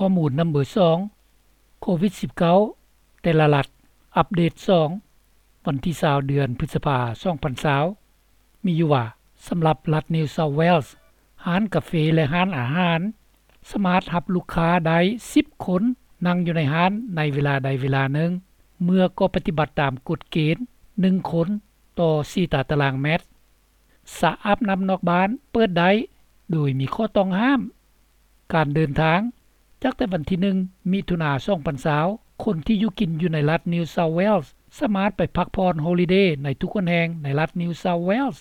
ຂໍ້ມູນນຳເບີສອງ ໂຄວິດສິບເກົ້າ ແຕ່ລະລັດ ອັບເດດສອງ ວັນທີຊາວ ເດືອນພຶດສະພາ ສອງພັນຊາວ ມີຢູ່ວ່າ ສຳລັບລັດ New South Wales ຮ້ານກາເຟ ແລະ ຮ້ານອາຫານ ສາມາດຮັບລູກຄ້າໄດ້ສິບຄົນ ນັ່ງຢູ່ໃນຮ້ານໃນເວລາໃດເວລາໜຶ່ງ ເມື່ອກໍປະຕິບັດຕາມກົດເກນ ໜຶ່ງຄົນຕໍ່ສີ່ຕາຕະລາງແມັດ. ສະອາບນ້ຳນອກບ້ານເປີດໄດ້ ໂດຍມີຂໍ້ຕ້ອງຫ້າມ. ການເດີນທາງ ຈາກແຕ່ວັນທີໜຶ່ງ ມິຖຸນາ ສອງພັນຊາວ ຄົນທີ່ຢູ່ກິນຢູ່ໃນລັດ New South Wales ສາມາດໄປພັກຜ່ອນ Holiday ໃນທຸກຫົນແຫ່ງໃນລັດ New South Wales.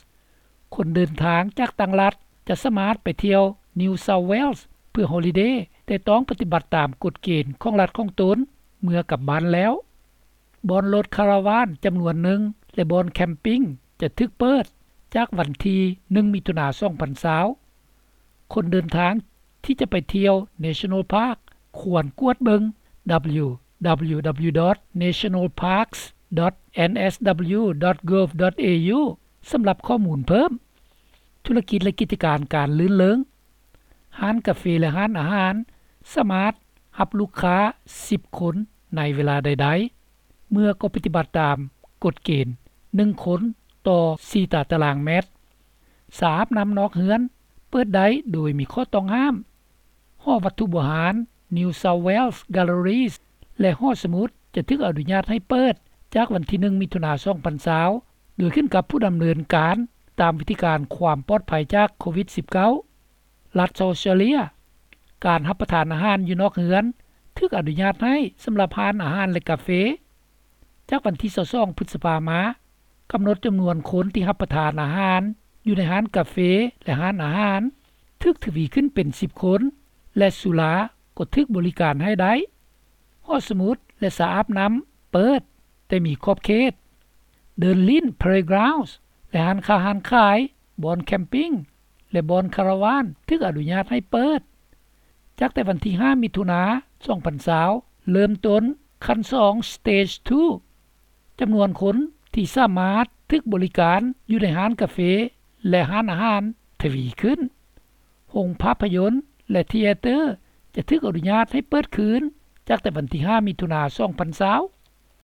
ຄົນເດີນທາງຈາກຕ່າງລັດຈະສາມາດໄປທ່ຽວ New South Wales ເພື່ອ Holiday ແຕ່ຕ້ອງປະຕິບັດຕາມກົດເກນຂອງລັດຂອງຕົນເມື່ອກັບບ້ານແລ້ວ. ບ່ອນລົດຄາຣາວານຈຳນວນໜຶ່ງ ແລະ ບ່ອນແຄມປິງຈະຖືກເປີດຈາກວັນທີໜຶ່ງ ມິຖຸນາ ສອງພັນຊາວ. ຄົນເດີນທາງທີ່ຈະໄປທ່ຽວ National Park ຄວນກວດເບິ່ງ www.nationalparks.nsw.gov.au ສຳລັບຂໍ້ມູນເພີ່ມ. ທຸລະກິດ ແລະ ກິດຈະການການລື່ນເລີງ. ຮ້ານກາເຟ ແລະ ຮ້ານອາຫານ ສາມາດຮັບລູກຄ້າສິບຄົນໃນເວລາໃດໆ ເມື່ອກໍປະຕິບັດຕາມກົດເກນ ໜຶ່ງຄົນຕໍ່ສີ່ຕາຕະລາງແມັດ. ສະອາບນ້ຳນອກເຮືອນເປີດໄດ້ໂດຍມີຂໍ້ຕ້ອງຫ້າມ. ຫໍວັດຖຸບູຮານ New South Wales Galleries ແລະ ຫໍສະໝຸດຈະຖືກອະນຸຍາດໃຫ້ເປີດຈາກວັນທີໜຶ່ງ ມິຖຸນາ ສອງພັນຊາວ ໂດຍຂຶ້ນກັບຜູ້ດຳເນີນການຕາມວິທີການຄວາມປອດໄພຈາກໂຄວິດສິບເກົ້າ. ລັດ South Australia ການຮັບປະທານອາຫານຢູ່ນອກເຮືອນຖືກອະນຸຍາດໃຫ້ສຳລັບຮ້ານອາຫານ ແລະ ກາເຟ. ຈາກວັນທີຊາວສອງ ພຶດສະພາມາ ກຳນົດຈຳນວນຄົນທີ່ຮັບປະທານອາຫານຢູ່ໃນຮ້ານກາເຟ ແລະ ຮ້ານອາຫານ ຖືກທະວີຂຶ້ນເປັນສິບຄົນ ແລະ ສຸລາກໍຖືກບໍລິການໃຫ້ໄດ້. ຫໍສະໝຸດ ແລະ ສະອາບນ້ຳເປີດ ແຕ່ມີຂອບເຂດ. ເດີ່ນຫຼິ້ນ Playgrounds ແລະ ຮ້ານຄ້າຮ້ານຂາຍ, ບ່ອນແຄມປິງ ແລະ ບ່ອນຄາຣາວານຖືກອະນຸຍາດໃຫ້ເປີດ. ຈາກແຕ່ວັນທີຫ້າ ມິຖຸນາ ສອງພັນຊາວ ເລີ່ມຕົ້ນຂັ້ນສອງ Stage two. ຈຳນວນຄົນທີ່ສາມາດຖືກບໍລິການຢູ່ໃນຮ້ານກາເຟ ແລະ ຮ້ານອາຫານທະວີຂຶ້ນ. ໂຮງພາບພະຍົນ ແລະ ທີແອເຕີ ຈະຖືກອະນຸຍາດໃຫ້ເປີດຄືນ ຈາກແຕ່ວັນທີຫ້າ ມິຖຸນາ ສອງພັນຊາວ.